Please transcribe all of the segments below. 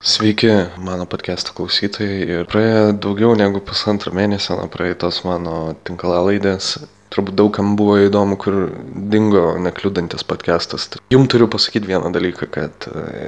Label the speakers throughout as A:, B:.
A: Sveiki, mano podcast'o klausytojai. Ir praėjo daugiau negu pusantro mėnesio nuo praeitos mano tinklalaidės. Turbūt daugam buvo įdomu, kur dingo nekliudantis podcastas. Jums turiu pasakyti vieną dalyką, kad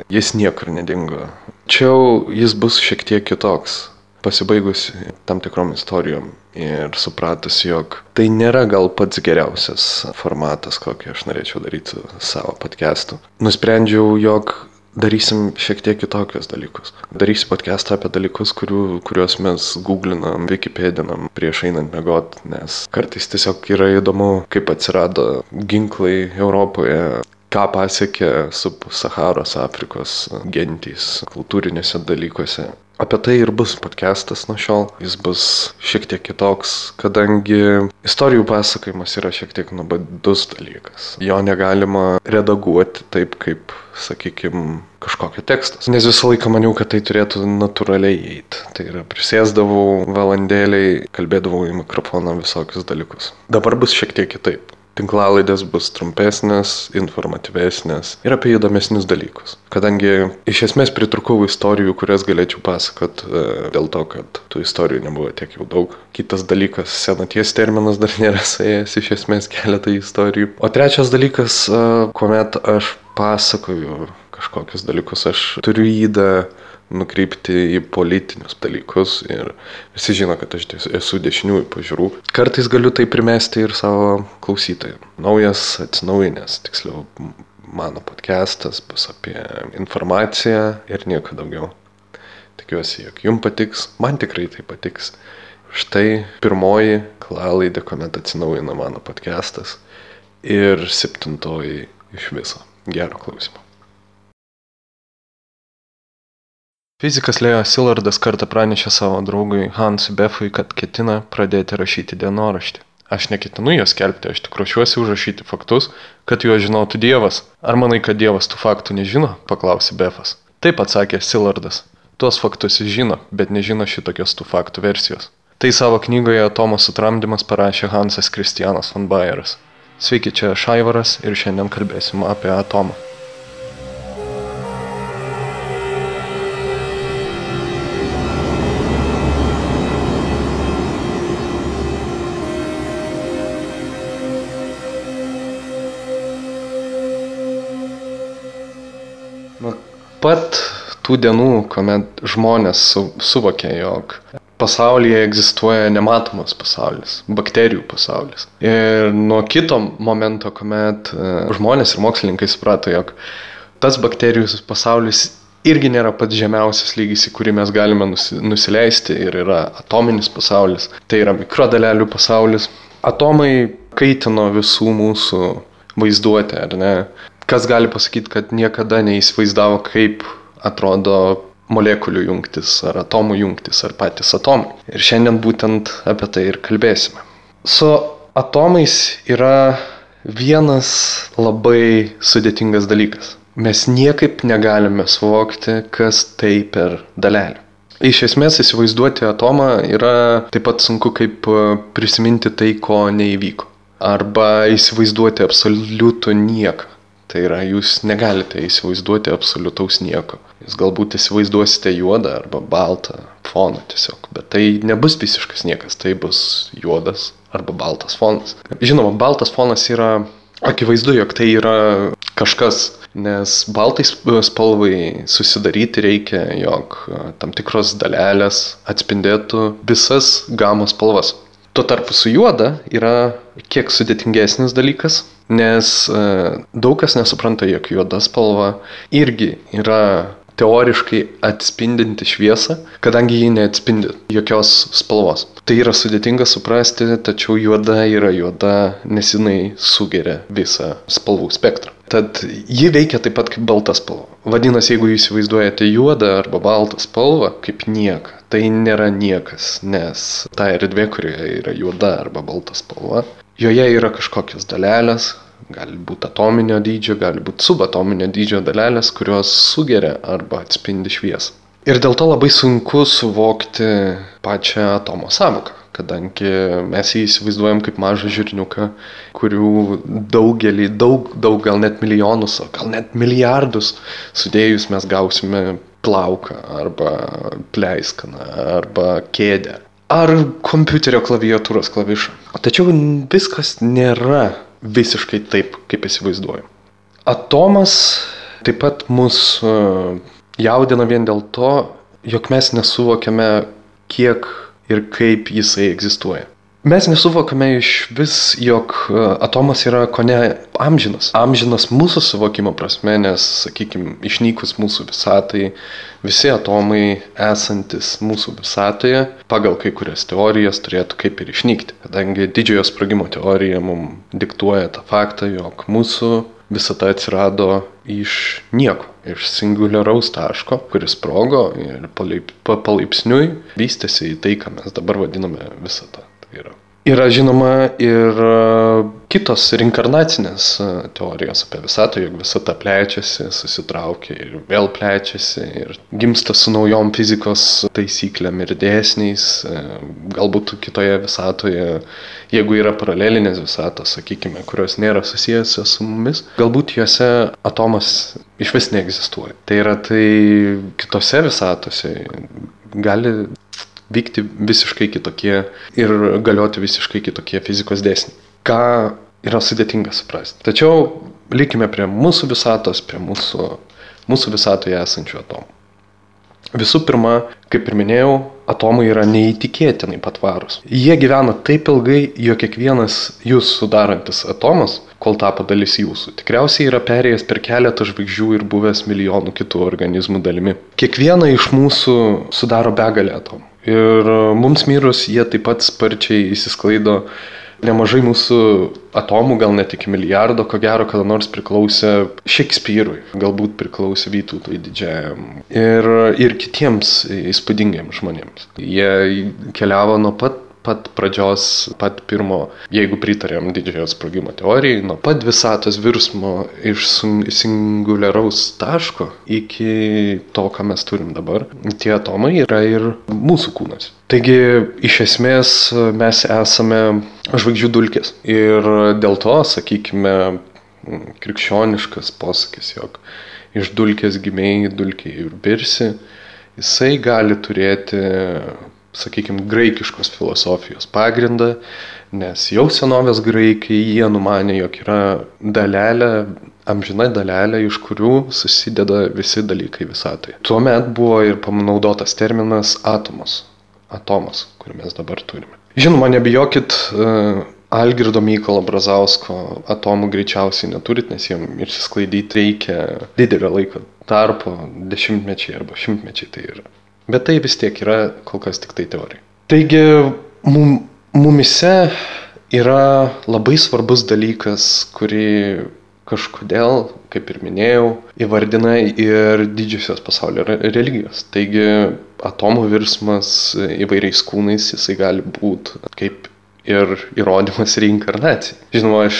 A: jis niekur nedingo. Tačiau jis bus šiek tiek kitoks. Pasibaigus tam tikrom istorijom ir supratus, jog tai nėra gal pats geriausias formatas, kokį aš norėčiau daryti savo podcast'u. Nusprendžiau, jog darysim šiek tiek kitokius dalykus. Darysim podcastą apie dalykus, kuriuos mes googlinam, Wikipedinam prieš einant miegot, nes kartais tiesiog yra įdomu, kaip atsirado ginklai Europoje, ką pasiekė Sub-Saharos Afrikos gentys kultūrinėse dalykuose. Apie tai ir bus podcastas nuo šiol. Jis bus šiek tiek kitoks, kadangi istorijų pasakojimas yra šiek tiek nuobodus dalykas. Jo negalima redaguoti taip, kaip, sakykime, kažkokio tekstas. Nes visą laiką maniau, kad tai turėtų natūraliai eiti. Tai yra, prisėsdavau valandėliai, kalbėdavau į mikrofoną visokius dalykus. Dabar bus šiek tiek kitaip. Tinklalaidės bus trumpesnės, informatyvesnės ir apie įdomesnius dalykus. Kadangi iš esmės pritrūkau istorijų, kurias galėčiau pasakot dėl to, kad tų istorijų nebuvo tiek jau daug. Kitas dalykas, senaties terminas dar nėra suėjęs iš esmės keletą istorijų. O trečias dalykas, kuomet aš pasakoju kažkokius dalykus, aš turiu įdą nukreipti į politinius dalykus ir visi žino, kad aš esu dešiniųjų pažiūrų. Kartais galiu tai primesti ir savo klausytojams. Naujas, atsinaujinęs, tiksliau, mano podcastas bus apie informaciją ir nieko daugiau. Tikiuosi, jog jums patiks, man tikrai tai patiks. Štai pirmoji tinklalaidė, kuomet atsinaujina mano podcastas ir 7 iš viso. Gero klausimo. Fizikas Leo Szillardas kartą pranešė savo draugui Hansui Befui, kad ketina pradėti rašyti dienoraštį. Aš neketinu jo skelbti, aš tik ruošiuosi užrašyti faktus, kad juos žinotų Dievas. Ar manai, kad Dievas tų faktų nežino? Paklausė Befas. Taip, atsakė Szillardas. Tuos faktus jis žino, bet nežino šitokios tų faktų versijos. Tai savo knygoje Atomo sutramdymas parašė Hansas Kristianas von Bayeras. Sveiki, čia aš Aivaras ir šiandien kalbėsim apie atomą. Pat tų dienų, kuomet žmonės suvokė, jog pasaulyje egzistuoja nematomas pasaulis, bakterijų pasaulis. Ir nuo kito momento, kuomet žmonės ir mokslininkai suprato, jog tas bakterijų pasaulis irgi nėra pats žemiausias lygis, į kurį mes galime nusileisti ir yra atominis pasaulis, tai yra mikrodalelių pasaulis. Atomai kaitino visų mūsų vaizduotę, ar ne? Kas gali pasakyti, kad niekada neįsivaizdavo, kaip atrodo molekulių jungtis, ar atomų jungtis, ar patys atomai. Ir šiandien būtent apie tai ir kalbėsime. Su atomais yra vienas labai sudėtingas dalykas. Mes niekaip negalime suvokti, kas tai per dalelė. Iš esmės įsivaizduoti atomą yra taip pat sunku, kaip prisiminti tai, ko neįvyko. Arba įsivaizduoti absoliutų nieką. Tai yra, jūs negalite įsivaizduoti absoliutaus nieko. Jūs galbūt įsivaizduosite juodą arba baltą foną tiesiog, bet tai nebus visiškas niekas, tai bus juodas arba baltas fonas. Žinoma, baltas fonas yra akivaizdu, jog tai yra kažkas, nes baltai spalvai susidaryti reikia, jog tam tikros dalelės atspindėtų visas gamos spalvas. Tuo tarpu su juoda yra kiek sudėtingesnis dalykas, nes daug kas nesupranta, jog juoda spalva irgi yra teoriškai atspindinti šviesą, kadangi ji neatspindi jokios spalvos. Tai yra sudėtinga suprasti, tačiau juoda yra juoda, nes jinai sugeria visą spalvų spektrą. Tad ji veikia taip pat kaip balta spalva. Vadinasi, jeigu jūs įsivaizduojate juodą arba baltą spalvą kaip nieką, tai nėra niekas, nes ta erdvė, kurioje yra juoda arba balta spalva, joje yra kažkokios dalelės, gali būti atominio dydžio, gali būti subatominio dydžio dalelės, kurios sugeria arba atspindi šviesą. Ir dėl to labai sunku suvokti pačią atomo sąvoką, kadangi mes jį įsivaizduojam kaip mažą žirniuką, kurių daug, gal net milijonus, gal net milijardus sudėjus mes gausime plauką, arba pleiskaną, arba kėdę, ar kompiuterio klaviatūros klavišą. Tačiau viskas nėra visiškai taip, kaip įsivaizduoju. Atomas taip pat mus jaudina vien dėl to, jog mes nesuvokiame, kiek ir kaip jisai egzistuoja. Mes nesuvokame iš vis, jog atomas yra kone amžinas. Amžinas mūsų suvokimo prasme, nes, sakykime, išnykus mūsų visatai, visi atomai esantis mūsų visatoje, pagal kai kurias teorijas, turėtų kaip ir išnykti. Kadangi didžiojo sprogimo teorija mums diktuoja tą faktą, jog mūsų visata atsirado iš nieko, iš singuliaraus taško, kuris sprogo ir palaipsniui vystėsi į tai, ką mes dabar vadiname visata. Yra žinoma ir kitos reinkarnacinės teorijos apie visatą, jog visata plečiasi, susitraukia ir vėl plečiasi ir gimsta su naujom fizikos taisyklėm ir dėsniais. Galbūt kitoje visatoje, jeigu yra paralelinės visatos, sakykime, kurios nėra susijusios su mumis, galbūt juose atomas iš vis neegzistuoja. Tai yra, tai kitose visatose gali vykti visiškai kitokie ir galioti visiškai kitokie fizikos dėsniai. Ką yra sudėtinga suprasti. Tačiau likime prie mūsų visatos, prie mūsų visatoje esančių atomų. Visų pirma, kaip ir minėjau, atomai yra neįtikėtinai patvarūs. Jie gyvena taip ilgai, jog kiekvienas jūs sudarantis atomas, kol tapo dalis jūsų, tikriausiai yra perėjęs per keletą žvaigždžių ir buvęs milijonų kitų organizmų dalimi. Kiekvieną iš mūsų sudaro begalė atomų. Ir mums mirus jie taip pat sparčiai įsisklaido. Nemažai mūsų atomų, gal net iki milijardo, ko gero, kada nors priklausė Šekspyrui, galbūt priklausė Vytautui Didžiajam ir kitiems įspūdingiems žmonėms. Jie keliavo nuo pat pradžios, pat pirmo, jeigu pritarėm didžiojo sprogimo teorijai, nuo pat visatos virsmo iš singuliaraus taško iki to, ką mes turim dabar. Tie atomai yra ir mūsų kūnas. Taigi, iš esmės, mes esame žvaigždžių dulkės. Ir dėl to, sakykime, krikščioniškas posakis, jog iš dulkės gimei, dulkėje ir birsi, jisai gali turėti, sakykime, graikiškos filosofijos pagrindą, nes jau senovės graikai jie numanė, jog yra dalelė, amžina dalelė, iš kurių susideda visi dalykai visatoje. Tuomet buvo ir panaudotas terminas atomas, kurį mes dabar turime. Žinoma, nebijokit, Algirdo Mykolo Brazausko atomų greičiausiai neturit, nes jiem išsisklaidyti reikia didelio laiko tarpo, dešimtmečiai arba šimtmečiai tai yra. Bet tai vis tiek yra kol kas tik tai teorija. Taigi, mumise yra labai svarbus dalykas, kurį kažkodėl, kaip ir minėjau, įvardina ir didžiosios pasaulio religijos. Taigi, atomų virsmas įvairiais kūnais, jisai gali būti kaip ir įrodymas reinkarnacijai. Žinoma, aš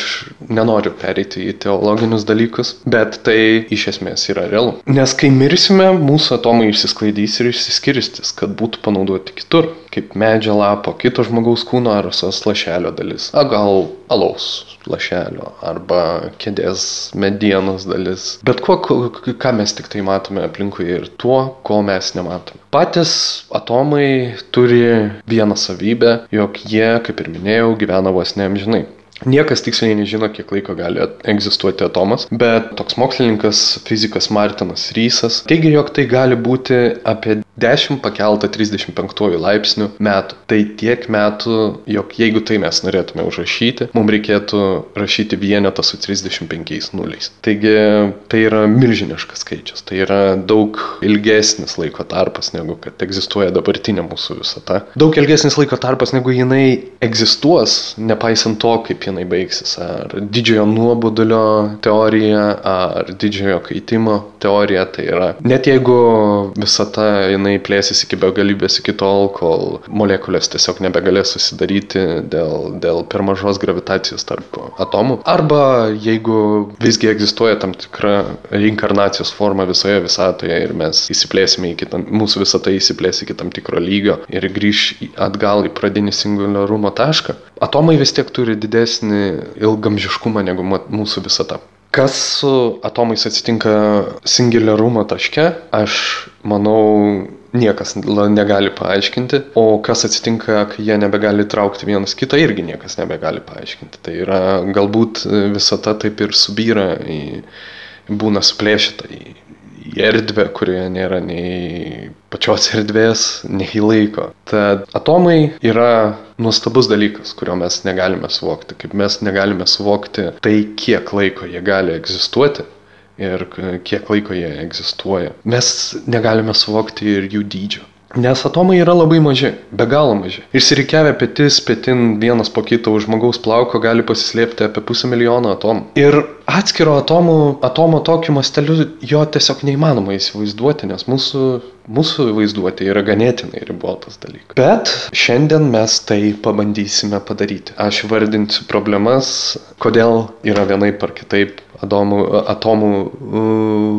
A: nenoriu pereiti į teologinius dalykus, bet tai iš esmės yra realu. Nes kai mirsime, mūsų atomai išsisklaidys ir išsiskirstys, kad būtų panaudoti kitur, kaip medžio lapo, kito žmogaus kūno ar visos lašelio dalis. Gal alaus lašelio arba kėdės medienos dalis. Bet ką mes tik tai matome aplinkui ir tuo, ko mes nematome. Patys atomai turi vieną savybę, jog jie, kaip ir minėjau, gyvena vos neamžinai. Niekas tiksliai nežino, kiek laiko gali egzistuoti atomas, bet toks mokslininkas, fizikas Martinas Rysas teigia, jog tai gali būti apie 10 pakelta 35 laipsnių metų. Tai tiek metų, jog jeigu tai mes norėtume užrašyti, mums reikėtų rašyti vienetą su 35 nuliais. Taigi tai yra milžiniškas skaičius, tai yra daug ilgesnis laiko tarpas, negu kad egzistuoja dabartinė mūsų visata. Daug ilgesnis laiko tarpas, negu jinai egzistuos, nepaisant to, kaip jinai baigsis. Ar didžiojo nuobodulio teorija, ar didžiojo kaitimo teorija. Tai yra, net jeigu visata jinai plėsis iki begalybės iki tol, kol molekulės tiesiog nebegalės susidaryti dėl per mažos gravitacijos tarp atomų. Arba jeigu visgi egzistuoja tam tikra reinkarnacijos forma visoje visatoje ir mes įsiplėsime mūsų visata įsiplės iki tam tikro lygio ir grįš atgal į pradinį singuliarumo tašką, atomai vis tiek turi didesnį ilgamžiškumą negu mūsų visata. Kas su atomais atsitinka singularumo taške, aš manau, niekas negali paaiškinti, o kas atsitinka, kai jie nebegali traukti vienas kitą, irgi niekas nebegali paaiškinti. Tai yra, galbūt visata taip ir subyra, būna suplėšyta į erdvę, kurioje nėra nei pačios erdvės, nei laiko. Tad atomai yra nuostabus dalykas, kurio mes negalime suvokti. Kaip mes negalime suvokti tai, kiek laiko jie gali egzistuoti ir kiek laiko jie egzistuoja. Mes negalime suvokti ir jų dydžio. Nes atomai yra labai maži, be galo maži. Išsirikiavę petis, petin vienas po kito už žmogaus plauko gali pasislėpti apie 500 000 atomų. Ir atskiro atomo tokiu masteliu jo tiesiog neįmanoma įsivaizduoti, nes mūsų vaizduotė yra ganėtinai ribotas dalykas. Bet šiandien mes tai pabandysime padaryti. Aš vardinsiu problemas, kodėl yra vienaip ar kitaip atomų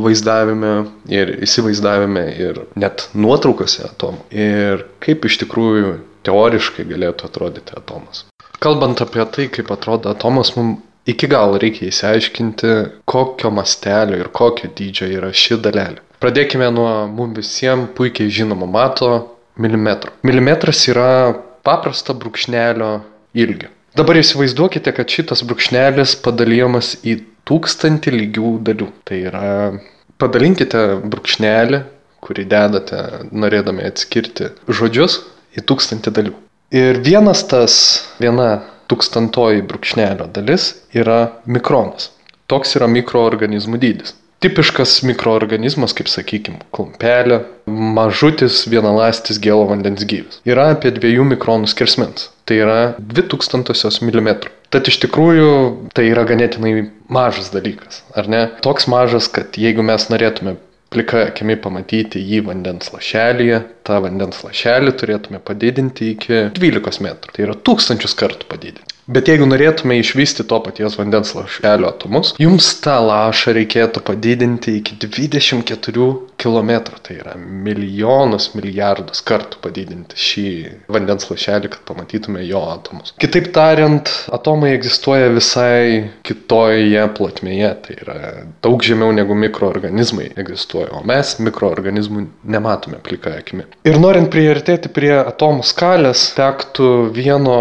A: vaizdavime ir įsivaizdavime ir net nuotraukose atomų. Ir kaip iš tikrųjų teoriškai galėtų atrodyti atomas. Kalbant apie tai, kaip atrodo atomas, mums iki galo reikia įsiaiškinti, kokio mastelio ir kokio dydžio yra ši dalelė. Pradėkime nuo mums visiems puikiai žinomo mato milimetro. Milimetras yra paprasta brūkšnelio ilgio. Dabar įsivaizduokite, kad šitas brūkšnelis padalyjamas į 1000 lygių dalių. Tai yra, padalinkite brūkšnelį, kurį dedate norėdami atskirti žodžius, į 1000 dalių. Ir viena 1000 brūkšnelio dalis yra mikronas. Toks yra mikroorganizmų dydis. Tipiškas mikroorganizmas, kaip sakykime, klumpelė, mažutis vienaląstis gėlo vandens gyvis. Yra apie 2 mikronų skersmens. Tai yra 0,02 mm. Tad iš tikrųjų tai yra ganėtinai mažas dalykas, ar ne? Toks mažas, kad jeigu mes norėtume plika akimi pamatyti jį vandens lašelyje, tą vandens lašelį turėtume padidinti iki 12 metrų. Tai yra 1000 kartų padidinti. Bet jeigu norėtume išvysti to paties vandens lašelio atomus, jums tą lašą reikėtų padidinti iki 24 km. Tai yra milijonus, milijardus kartų padidinti šį vandens lašelį, kad pamatytume jo atomus. Kitaip tariant, atomai egzistuoja visai kitoje plotmėje. Tai yra daug žemiau negu mikroorganizmai egzistuoja, o mes mikroorganizmų nematome plika akimi. Ir norint priartėti prie atomų skalės, tektų vieno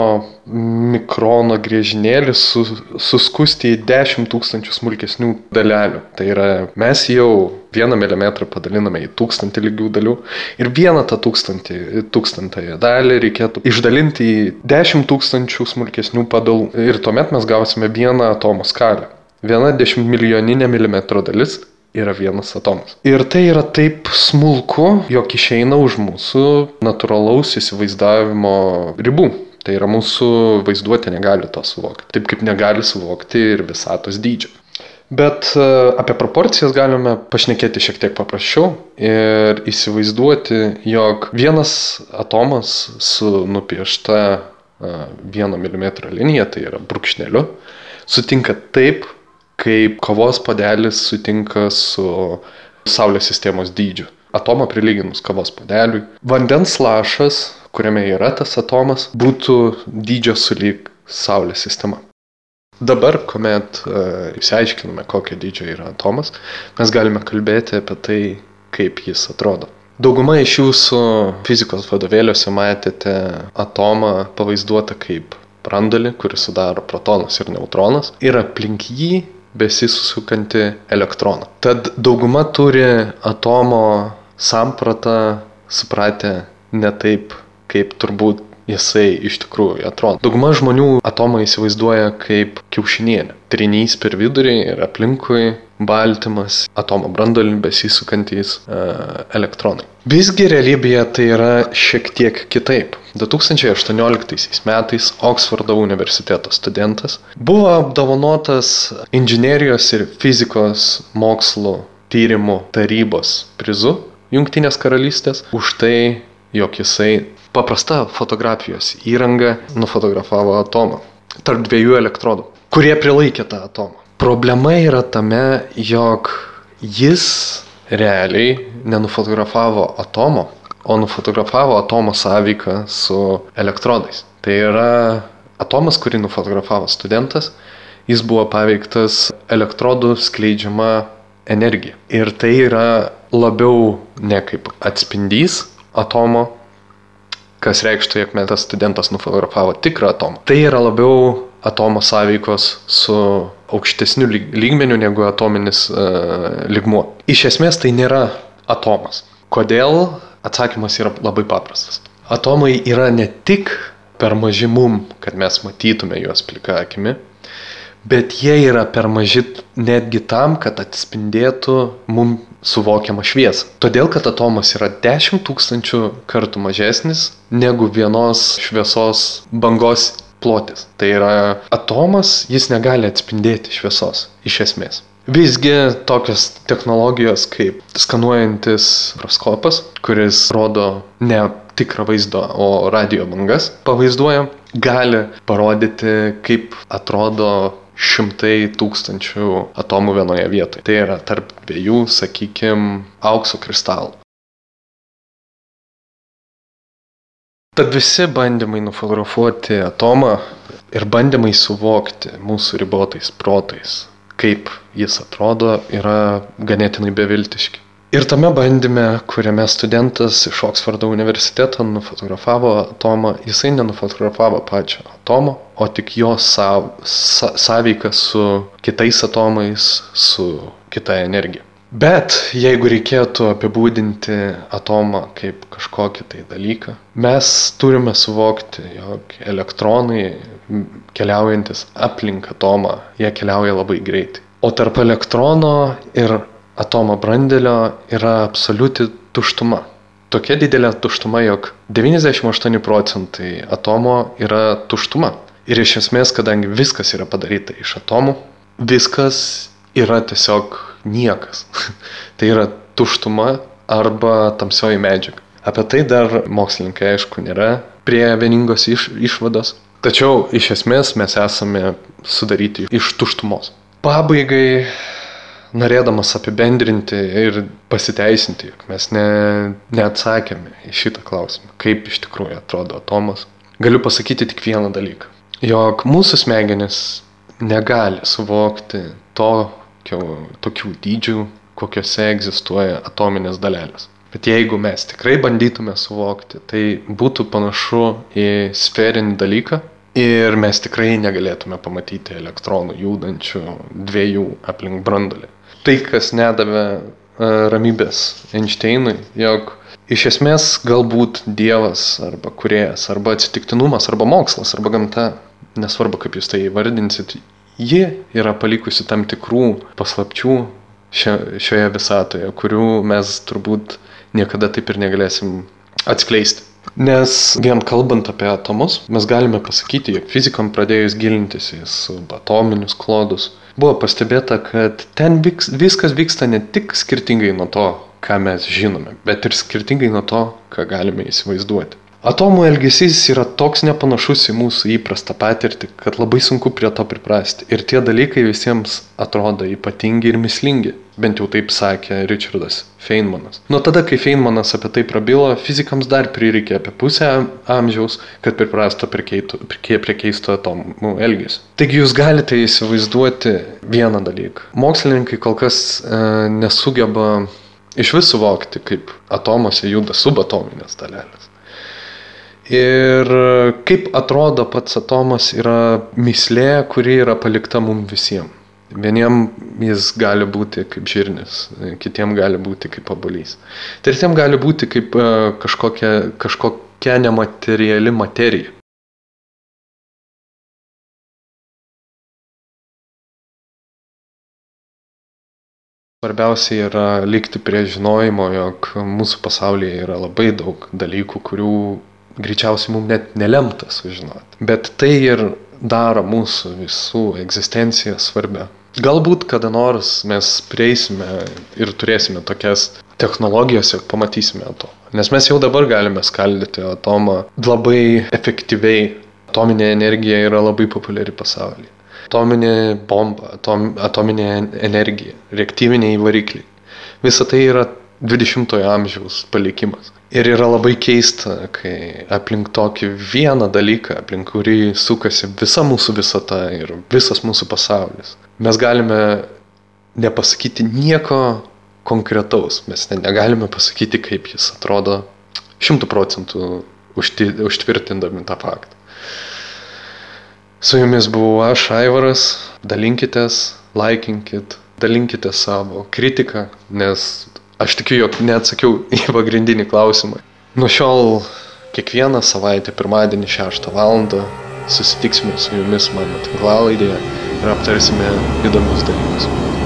A: mikrono griežinėlį suskusti į 10 000 smulkesnių dalelių. Tai yra, mes jau 1 mm padaliname į 1000 lygių dalių ir vieną tą 1000 dalį reikėtų išdalinti į 10 000 smulkesnių padalų. Ir tuomet mes gausime vieną atomo skalę. 1/10 milijoninė milimetro dalis yra vienas atomas. Ir tai yra taip smulku, jog išeina už mūsų natūralaus įsivaizdavimo ribų. Tai yra, mūsų vaizduotė negali to suvokti. Taip kaip negali suvokti ir visatos dydžio. Bet apie proporcijas galime pašnekėti šiek tiek paprasčiau ir įsivaizduoti, jog vienas atomas su nupiešta 1 mm linija, tai yra brūkšneliu, sutinka taip, kaip kavos puodelis sutinka su Saulės sistemos dydžiu. Atomą prilyginus kavos puodeliui. Vandens lašas, kuriame yra tas atomas, būtų dydžio sulyg Saulės sistema. Dabar, kuomet išsiaiškiname, kokio dydžio yra atomas, mes galime kalbėti apie tai, kaip jis atrodo. Dauguma iš jūsų fizikos vadovėliuose matėte atomą pavaizduotą kaip branduolį, kuris sudaro protonas ir neutronas, ir aplink jį besisukantį elektroną. Tad dauguma turi atomo sampratą supratę ne taip, kaip turbūt jisai iš tikrųjų atrodo. Dauguma žmonių atomą įsivaizduoja kaip kiaušinienę. Trinys per vidurį ir aplinkui baltymas, atomo branduolį besisukantys elektronai. Visgi realybėje tai yra šiek tiek kitaip. 2018 metais Oksfordo universiteto studentas buvo apdovanotas inžinerijos ir fizikos mokslų tyrimų tarybos prizu Jungtinės karalystės už tai, jog jisai paprasta fotografijos įranga nufotografavo atomą tarp 2 elektrodų, kurie prilaikė tą atomą. Problema yra tame, jog jis realiai nenufotografavo atomo, o nufotografavo atomo sąveiką su elektrodais. Tai yra atomas, kurį nufotografavo studentas, jis buvo paveiktas elektrodų skleidžiama energija. Ir tai yra labiau ne kaip atspindys atomo, kas reikštų, jog tas studentas nufotografavo tikrą atomą. Tai yra labiau atomo sąveikos su aukštesniu lygmeniu negu atominis lygmuo. Iš esmės tai nėra atomas. Kodėl? Atsakymas yra labai paprastas. Atomai yra ne tik per maži mum, kad mes matytume juos plika akimi, bet jie yra per maži netgi tam, kad atspindėtų mum suvokiamą šviesą. Todėl, kad atomas yra 10 000 kartų mažesnis negu vienos šviesos bangos plotis. Tai yra atomas, jis negali atspindėti šviesos, iš esmės. Visgi tokios technologijos kaip skanuojantis mikroskopas, kuris rodo ne tikrą vaizdą, o radio bangas pavaizduoja, gali parodyti, kaip atrodo 100 000 atomų vienoje vietoje. Tai yra tarp dviejų, sakykime, aukso kristalų. Tad visi bandymai nufotografuoti atomą ir bandymai suvokti mūsų ribotais protais, kaip jis atrodo, yra ganėtinai beviltiški. Ir tame bandyme, kuriame studentas iš Oksfordo universiteto nufotografavo atomą, jisai nenufotografavo pačio atomo, o tik jo sąveiką su kitais atomais, su kita energija. Bet jeigu reikėtų apibūdinti atomą kaip kažkokį tai dalyką, mes turime suvokti, jog elektronai keliaujantis aplink atomą, jie keliauja labai greitai. O tarp elektrono ir atomo branduolio yra absoliuti tuštuma. Tokia didelė tuštuma, jog 98% atomo yra tuštuma. Ir iš esmės, kadangi viskas yra padaryta iš atomų, viskas yra tiesiog niekas. Tai yra tuštuma arba tamsioji medžiaga. Apie tai dar mokslininkai, aišku, nėra prie vieningos išvados. Tačiau iš esmės mes esame sudaryti iš tuštumos. Pabaigai, norėdamas apibendrinti ir pasiteisinti, jog mes neatsakėme į šitą klausimą, kaip iš tikrųjų atrodo atomas, galiu pasakyti tik vieną dalyką. Jog mūsų smegenys negali suvokti tokių dydžių, kokiuose egzistuoja atominės dalelės. Bet jeigu mes tikrai bandytume suvokti, tai būtų panašu į sferinį dalyką ir mes tikrai negalėtume pamatyti elektronų judančių dviejų aplink branduolį. Tai, kas nedavė ramybės Einšteinui, jog iš esmės galbūt Dievas arba kūrėjas, arba atsitiktinumas, arba mokslas, arba gamta, nesvarbu kaip jūs tai įvardinsit, ji yra palikusi tam tikrų paslapčių šioje visatoje, kurių mes turbūt niekada taip ir negalėsim atskleisti. Nes vien kalbant apie atomus, mes galime pasakyti, jog fizikam pradėjus gilintis į subatominius klodus, buvo pastebėta, kad ten viskas vyksta ne tik skirtingai nuo to, ką mes žinome, bet ir skirtingai nuo to, ką galime įsivaizduoti. Atomų elgesys yra toks nepanašus į mūsų įprastą patirtį, kad labai sunku prie to priprasti. Ir tie dalykai visiems atrodo ypatingi ir mįslingi. Bent jau taip sakė Richardas Feynmanas. Nuo tada, kai Feynmanas apie tai prabilo, fizikams dar prireikė apie pusę amžiaus, kad priprastų prie keisto atomų elgesio. Taigi jūs galite įsivaizduoti vieną dalyką. Mokslininkai kol kas nesugeba iš vis suvokti, kaip atomose juda subatominės dalelės. Ir kaip atrodo pats atomas yra mįslė, kuri yra palikta mums visiems. Vieniem jis gali būti kaip žirnis, kitiem gali būti kaip obuolys. Tretiem gali būti kaip kažkokia nemateriali materija. Svarbiausia yra likti prie žinojimo, jog mūsų pasaulyje yra labai daug dalykų, kurių greičiausiai mums net nelemta sužinoti. Bet tai ir daro mūsų visų egzistenciją svarbia. Galbūt kada nors mes prieisime ir turėsime tokias technologijas ir pamatysime atomą. Nes mes jau dabar galime skaldyti atomą labai efektyviai. Atominė energija yra labai populiari pasaulyje. Atominė bomba, atominė energija, reaktyviniai varikliai. Visa tai yra 20-ojo amžiaus palikimas. Ir yra labai keista, kai aplink tokį vieną dalyką, aplink kurį sukasi visa mūsų visata ir visas mūsų pasaulis, mes galime nepasakyti nieko konkretaus, mes negalime pasakyti, kaip jis atrodo 100% užtvirtindami tą faktą. Su jumis buvau aš, Aivaras, dalinkitės, laikinkit, dalinkite savo kritiką, nes aš tikiu, jog neatsakiau į pagrindinį klausimą. Nuo šiol kiekvieną savaitę pirmadienį 6 valandą susitiksime su jumis mano tinklalaidėje ir aptarsime įdomius dalykus.